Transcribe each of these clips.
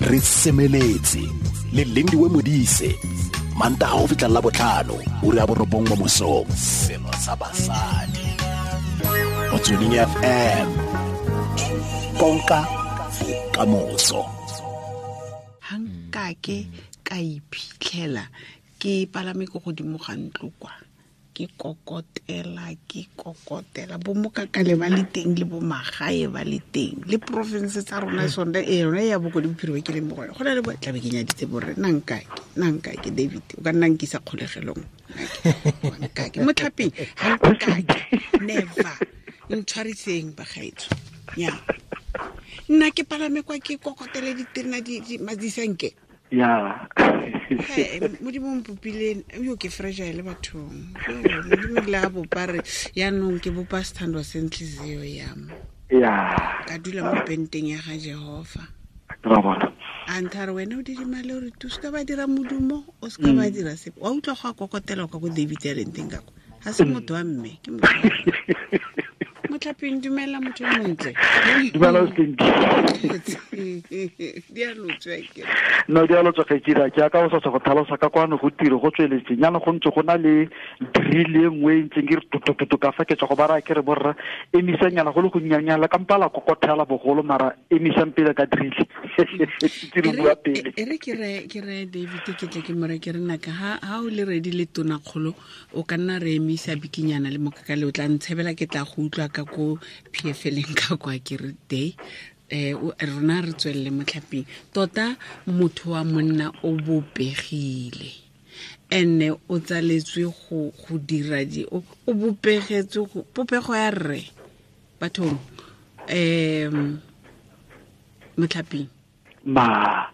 Re semeletse le Lindiwe Modise, Mantaga go fitlha la botlhano, ura ya 9 mo mosong. Selo sa basadi. Motsweding FM. Konka bokamoso. Ha nkake ka iphitlhela ke palame ko godimo ga ntlo kwa, ke kokotela bo mokakale ba le teng le bo magae ba le teng le province tsa rona sone e yone ya Bokone Bophirima ke leng mo go yone. Go na le bo tlabe ke nyaditse borre, nna nkake David, o ka nna nkisa kgolegelong. Nkake motlhapeng, ha nkake never ntshwariseng bagaetsho. Nya nna ke palame kwa ke kokotele diterena di madisanke. Ya. Modimo mpopile yo ke fragile bathong. Modimo le a bopa re yaanong ke bopa sethandwa se ntliziyo ya me. Ya. Ka dula mo penteng ya ga Jehova. Ra bona. A nthare wena o didimale o re tu se ka ba dira modumo, o se ka ba dira sepe. Wa utlwa go a kokotela kwa ko David ya leng teng ka kwa. Ha se motho wa mme, ke motho wa mme. Motlhapeng, dumela motho yo montle. Dumela o seng. Di a lotswa ke. No, di a lotswa ke dira ke aka o sa go tlhalosa ka kwano go tiro go tsweletse. Nyana go ntse go na le drill e nngwe e ntseng ke re tutututu ka fa ke tswa go bara ke re borra emisang nyana go le go nnyanyana ka mpala kokothela bogolo mara emisang pele ka drill. Ke re bua pele. E re ke re David ke tle ke more ke re naka ha o le ready le tona kgolo o ka nna re emisa bikinyana le mokakale o tla ntshebela ke tla go utlwa ka ko PFL-eng ka kwa ke re day. Rona re tswelele motlhapeng. Tota motho wa monna o bopegile ene o tsaletswe go dira di o bopegetswe go popego ya rre bathong. Motlhapeng ma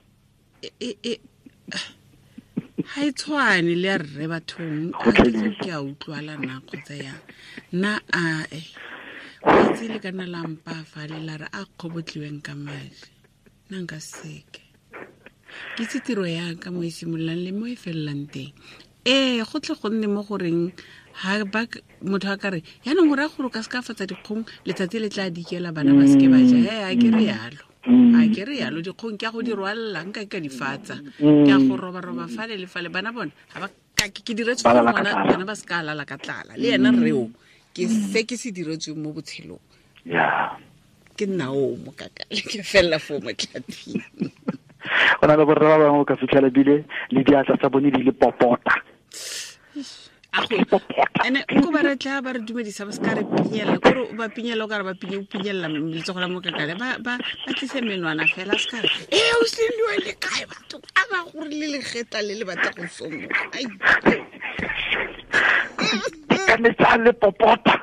ha e tshwane le ya rre bathong. A ke a utlwala na kgotsa yang nna a o itse le kana la mpa fa le la re a kgobotliweng ka madi nna nka seke ke itse tiro ya ka mo e simololang le mo e felelang teng. Go tle go nne mo goreng ha ba motho a ka re yaanong o raya gore o ka se ka fatsa dikgong letsatsi le tla dikela bana ba seke ba ja. A ke re yalo. A ke re yalo dikgong ke a go di rwalela nka ke ka di fatsa. Ke a go roba-roba fale le fale bana bona ha ba ka ke diretswe Ba gore lala ka tlala. bana ba se ka lala ka tlala. Le ena rreo ke se ke se diretsweng mo botshelong. Ya. Ke nna o mokakale ke fella fo motlhaping. Go na le borre ba bangwe o ka fitlhela bile le diatla tsa bone di le popota. A go ene ko ba re tla ba re dumedisa ba se ka re pinyella, kore o ba pinyella o ka re ba pinye, o pinyella letsogo la mokakale, ba tlise menwana fela, se ka re, o sendiwe le kae batho? A ba gore le legetla le le batla go somoga. Ai. Ka metsa le popota.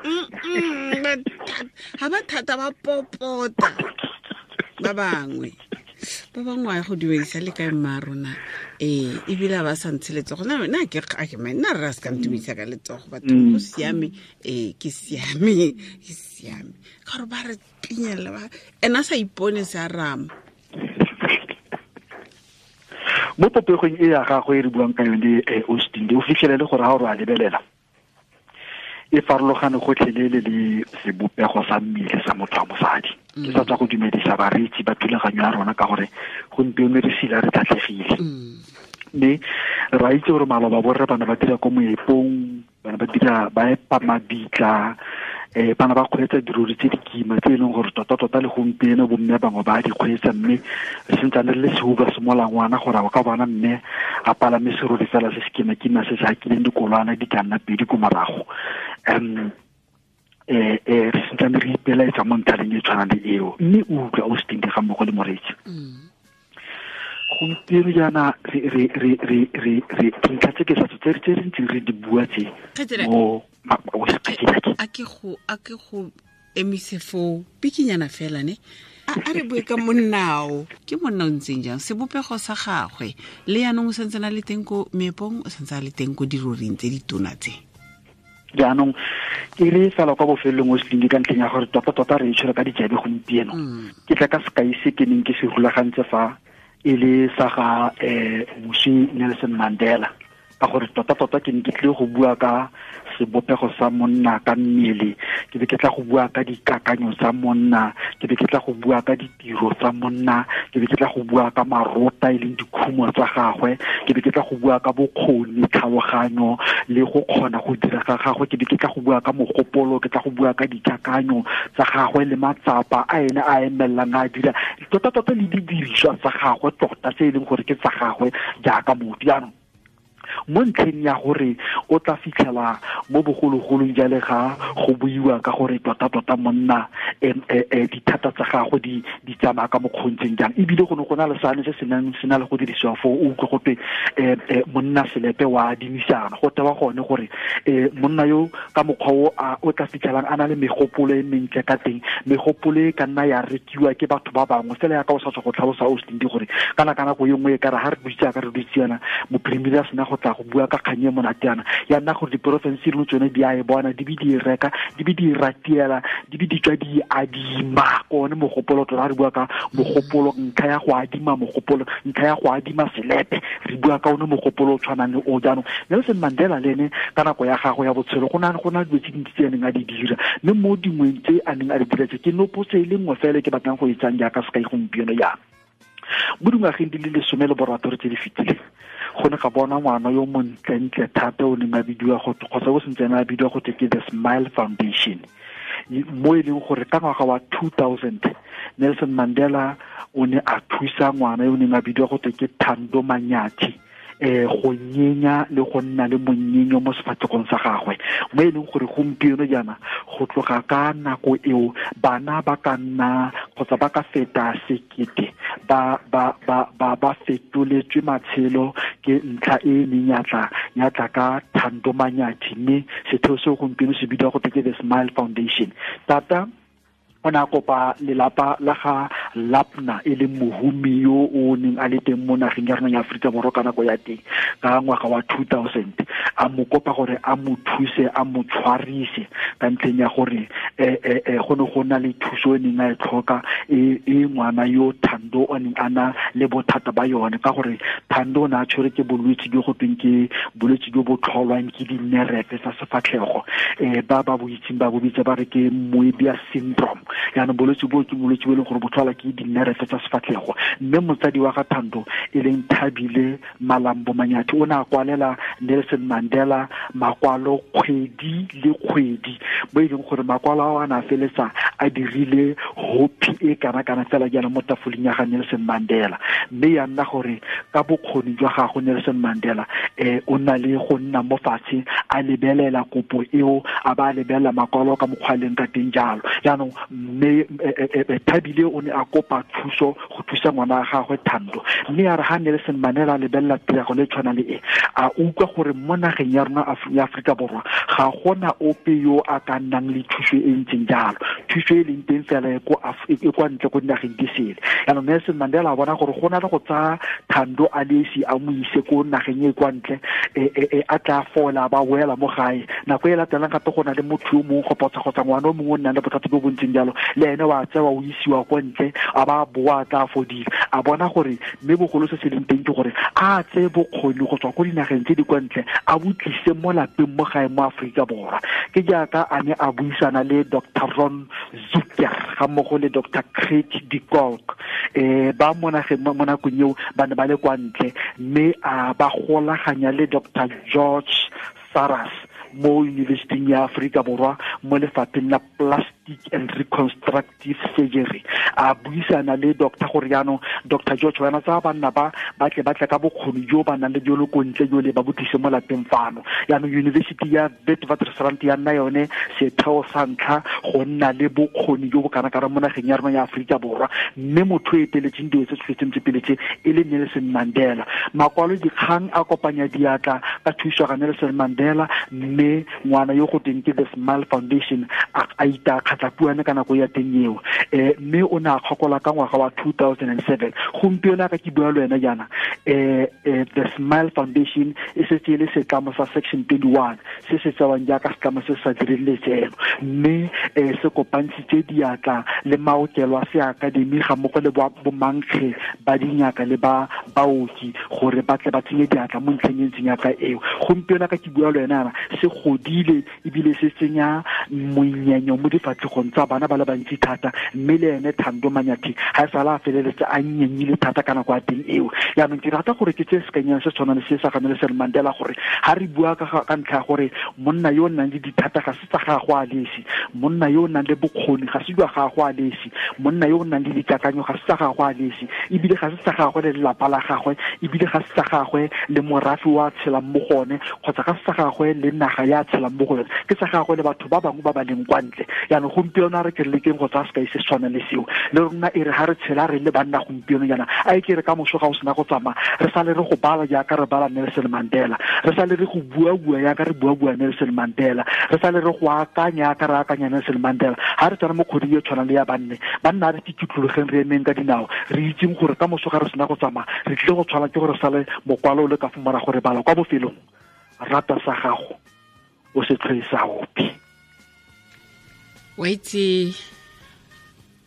Ha ba thata ba popota. Ba bangwe. Ba bangwe a go dumedisa le kae mma rona? Ebile ba sa ntshe letsogo. Nna ke a ke me, nna rra se ka ntumedisa ka letsogo, batho go siame. Ke siame, ke siame. Ka gore ba re pinyella ba, ena sa ipone se a rama. Mo popegong e ya gagwe e re buang ka yone, Austin, o fitlhelele gore ha o re a lebelela e farologane gotlhelele le sebopego sa mmele sa motho wa mosadi. Ke sa tswa go dumedisa bareetsi ba thulaganyo ya rona ka gore gompieno re sila re tlhatlhegile. Mme re a itse gore maloba borre ba ne ba dira ko moepong, ba ne ba dira ba epa mabitla, ba ne ba kgweetsa dirori tse di kima tse e leng gore tota-tota le gompieno bomme bangwe ba di kgweetsa, mme re santsane re le sehuba se molangwana gore o ka bona mme a palame serori fela se se kima-kima se se hakileng dikolwana di ka nna pedi ko morago. Re santsane re ipelaetsa mo ntlhaleng e tshwanang le eo, mme o utlwa o se teng ga mmogo le moreetsi. Gompieno jaana re dintlha tse ke sa tse re tse re ntseng re di bua tse Kgaitsedi, mo o se kgaitsedi ake. A ke go, a ke go emise foo bikinyana fela ne. A re bue ka monnao. Ke monna o ntseng jang? Sebopego sa gagwe le yaanong o santse a le teng ko meepong, o santse a le teng ko diroring tse di tona tse. Jaanong ke re fela kwa bofelong o se ka ntlheng ya gore tota-tota re e tshwere ka dijabe gompieno. Ke tla ka sekai se ke neng ke se rulagantse fa e le sa ga moswi Nelson Mandela. Ka gore tota-tota ke ne ke tlile go bua ka sebopego sa monna ka mmele, ke be ke tla go bua ka dikakanyo tsa monna, ke be ke tla go bua ka ditiro tsa monna, ke be ke tla go bua ka marota e leng dikhumo tsa gagwe, ke be ke tla go bua ka bokgoni, tlhaloganyo le go kgona go dira ga gagwe, ke be ke tla go bua ka mogopolo, ke tla go bua ka dikakanyo tsa gagwe le matsapa a ene a emellang a dira, tota-tota le didiriswa tsa gagwe tota tse e leng gore ke tsa gagwe jaaka motho. Jaanong mo ntlheng ya gore o tla fitlhela mo bogologolong jale ga go buiwa ka gore tota-tota monna dithata tsa gagwe di tsamaya ka mokgontseng jang, ebile go ne go na le sane se se nang se na le go dirisiwa foo, o utlwe gote monna selepe wa adimisana. Go tewa gone gore monna yo ka mokgwa o o tla fitlhelang a na le megopolo e mentle ka teng, megopolo e ka nna ya rekiwa ke batho ba bangwe fela ya ka o sa tswa go tlhalosa o se gore kana ka nako e nngwe e ka re ha re dutse ka re dutse yana mophirimiri a sena go tla go bua ka kgang e monate yana, ya nna gore diporofense dingwe tsone di a e bona, di be di e reka, di be di e ratiela, di be di tswa di adima ko one mogopolo. Tota re bua ka mogopolo, ntlha ya go adima mogopolo, ntlha ya go adima selepe, re bua ka one mogopolo o tshwanang le o. Jaanong Nelson Mandela le ene ka nako ya gagwe ya botshelo go na dilo tse dintsi tse a neng a di dira, mme mo dingweng tse a neng a di dira tse ke nopotse e le nngwe fela ke batlang go e tsang jaaka sekai gompieno jaana. Mo dingwageng di le 16 tse di fetileng, go ne ga bona ngwana yo montlentle thata o neng a bidiwa go kgotsa o sentsene a bidiwa go ke The Smile Foundation, mo e leng gore ka ngwaga wa 2000 Nelson Mandela o ne a thusa ngwana yo o neng a bidiwa go ke Thando Manyathi go nyenya le go nna le monyenyo mo sefatlhegong sa gagwe, mo e leng gore gompieno jaana go tloga ka nako eo bana ba ka nna kgotsa ba ka feta 1000 ba fetoletswe matshelo ke ntlha e neng ya tla ka Thando Manyathi, mme setheo seo gompieno se bidiwa go ke The Smile Foundation. Tata o ne a kopa lelapa la ga Lapna e leng mohumi yo o neng a le teng mo nageng ya rona ya Aforika Borwa ka nako ya teng ka ngwaga wa 2000, a mo kopa gore a mo thuse, a mo tshwarise ka ntlheng ya gore go ne go na le thuso e neng a e tlhoka e ngwana yo Thando o neng a na le bothata ba yone, ka gore Thando o ne a tshwere ke bolwetse jo go tweng ke bolwetse jo bo tlholwang ke dinerefe tsa sefatlhego, ba ba bo itseng ba bo bitsa ba re ke Moebius syndrome. Jaanong bolwetse bo ke bolwetse bo e leng gore bo tlhola ke dinerefe tsa sefatlhego, mme motsadi wa ga Thando e leng Thabile Malambo Manyathi o ne a kwalela Nelson Mandela makwalo kgwedi le kgwedi, mo e leng gore makwalo ao a ne a feletsa a dirile hopi e kana-kana fela jaana mo tafoleng ya ga Nelson Mandela. Mme ya nna gore ka bokgoni jwa gagwe Nelson Mandela o na le go nna mo fatshe a lebelela kopo eo, a ba a lebelela makwalo ka mokgwa a leng ka teng jalo. Jaanong mme Thabile o ne a kopa thuso go thusa ngwana wa gagwe Thando, mme ya re ha Nelson Mandela a lebelela tiragalo e tshwana le e, a utlwa gore mo nageng ya rona ya Aforika Borwa ga gona ope yo a ka nnang le thuso e ntseng jalo, thuso e leng teng fela e kwa ntle ko dinageng di sele. Jaanong Nelson Mandela a bona gore go na le go tsaya Thando a le esi a mo ise ko nageng e kwa ntle, a tla fola ba boela mo gae. Nako e latelang gape go na le motho yo mongwe kgotsa ngwana o mongwe o nnang le bothata jo bo ntseng jalo, le ene wa tsewa o isiwa kwa ntle, a ba boa tla fodile. A bona gore mme bogolo se se leng teng ke gore a tseye bokgoni go tswa ko dinageng tse di kwa ntle a bo tlise mo lapeng mo gae mo Aforika Borwa. Ke jaaka a ne a buisana le Dr. Ron Zucker ga mmogo le Dr. Craig de Kolk, ba mo nageng mo nakong eo ba ne ba le kwa ntle, mme a ba golaganya le Dr. George Saras mo University ya Aforika Borwa mo lefapheng la Plastic and Reconstructive Surgery. A buisana le doctor gore jaanong Dr. George wena tsa banna ba tle ka bokgoni jo ba nang le jo le ko ntle jo le ba bo tlise mo lapeng fano. Jaanong University ya Witwatersrand ya nna yone setheo sa ntlha go nna le bokgoni jo bo kana-kana mo nageng ya rona ya Aforika Borwa, mme motho o eteletseng dilo tse tshwetseng tse pele tse e le Nelson Mandela. Makwalo dikgang a kopanya diatla ka thuso ga Nelson Mandela, mme ngwana yo go teng ke The Smile Foundation a ita Matlhapuane ka nako ya teng eo. Mme o ne a kgokola ka ngwaga wa 2007. Gompieno ka ke bua le wena jaana, The Smile Foundation e setse e le setlamo sa Section 21 se se tsewang jaaka setlamo se se sa direng letseno, mme se kopantshitse diatla le maokelo a se akademi ga mmogo le bomankge ba dingaka le ba baoki gore ba tle ba tsenye diatla mo ntlheng e ntseng yaka eo. Gompieno ka ke bua le wena se godile ebile se tsenya monyenyo mo difatlhegong tsa bana ba le bantsi thata, mme le ene Thando Manyathi ga e sala a feleletse a nyenyile thata ka nako ya teng eo. Jaanong ke rata gore ke tse sekanyang se tshwana le se sa ga Nelson Mandela, gore ga re bua ka ntlha ya gore monna yo o nang le dithata ga se tsa gagwe a lesi, monna yo o nang le bokgoni ga se jwa gagwe a lesi, monna yo o nang le dikakanyo ga se tsa gagwe a lesi, ebile ga se tsa gagwe le lelapa la gagwe, ebile ga se tsa gagwe le morafe wa tshelang mo go one, kgotsa ga se tsa gagwe le naga ya tshelang mo go yone, ke tsa gagwe le batho ba bangwe ba ba leng kwa ntle. Jaanong gompieno a re ke re lekeng go tsaya sekai se se tshwanang le seo le rona, e re ga re tshela re le banna gompieno jaana, a e ke re ka moso ga o sena go tsamaya re sale re go bala jaaka re bala Nelson Mandela, re sale re go bua-bua jaaka re bua-bua Nelson Mandela, re sale re go akanya jaaka re akanya Nelson Mandela. Ga re tsena mo kgweding e tshwanang le ya banne, banna a re kitlologeng re emeng ka dinao, re itseng gore ka moso ga re sena go tsamaya re tlile go tshwana ke gore sale mokwalo o le ka fo morago re bala kwa bofelong, rata sa gago o se tlhoe sa ope. Wa itse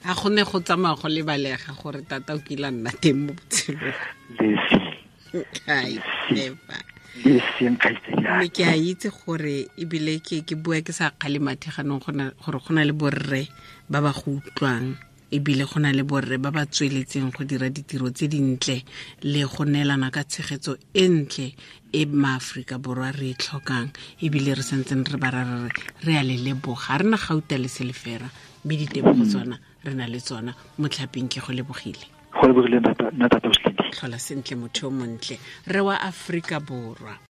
a go ne go tsamaya go lebalega gore tata o kile a nna teng mo botshelong. Mme ke a itse gore ebile ke bua ke sa kgale mathe ganong gore go na le borre ba ba go utlwang, ebile go na le borre ba ba tsweletseng go dira ditiro tse dintle le go neelana ka tshegetso e ntle e maAforika Borwa re e tlhokang, ebile re santseng re ba ra re re a le leboga. Re na gauta le selefera, mme ditebogo tsona re na le tsona. Motlhaping ke go lebogile. Go lebogile nna tata. Tlhola sentle motho yo montle, re wa Aforika Borwa.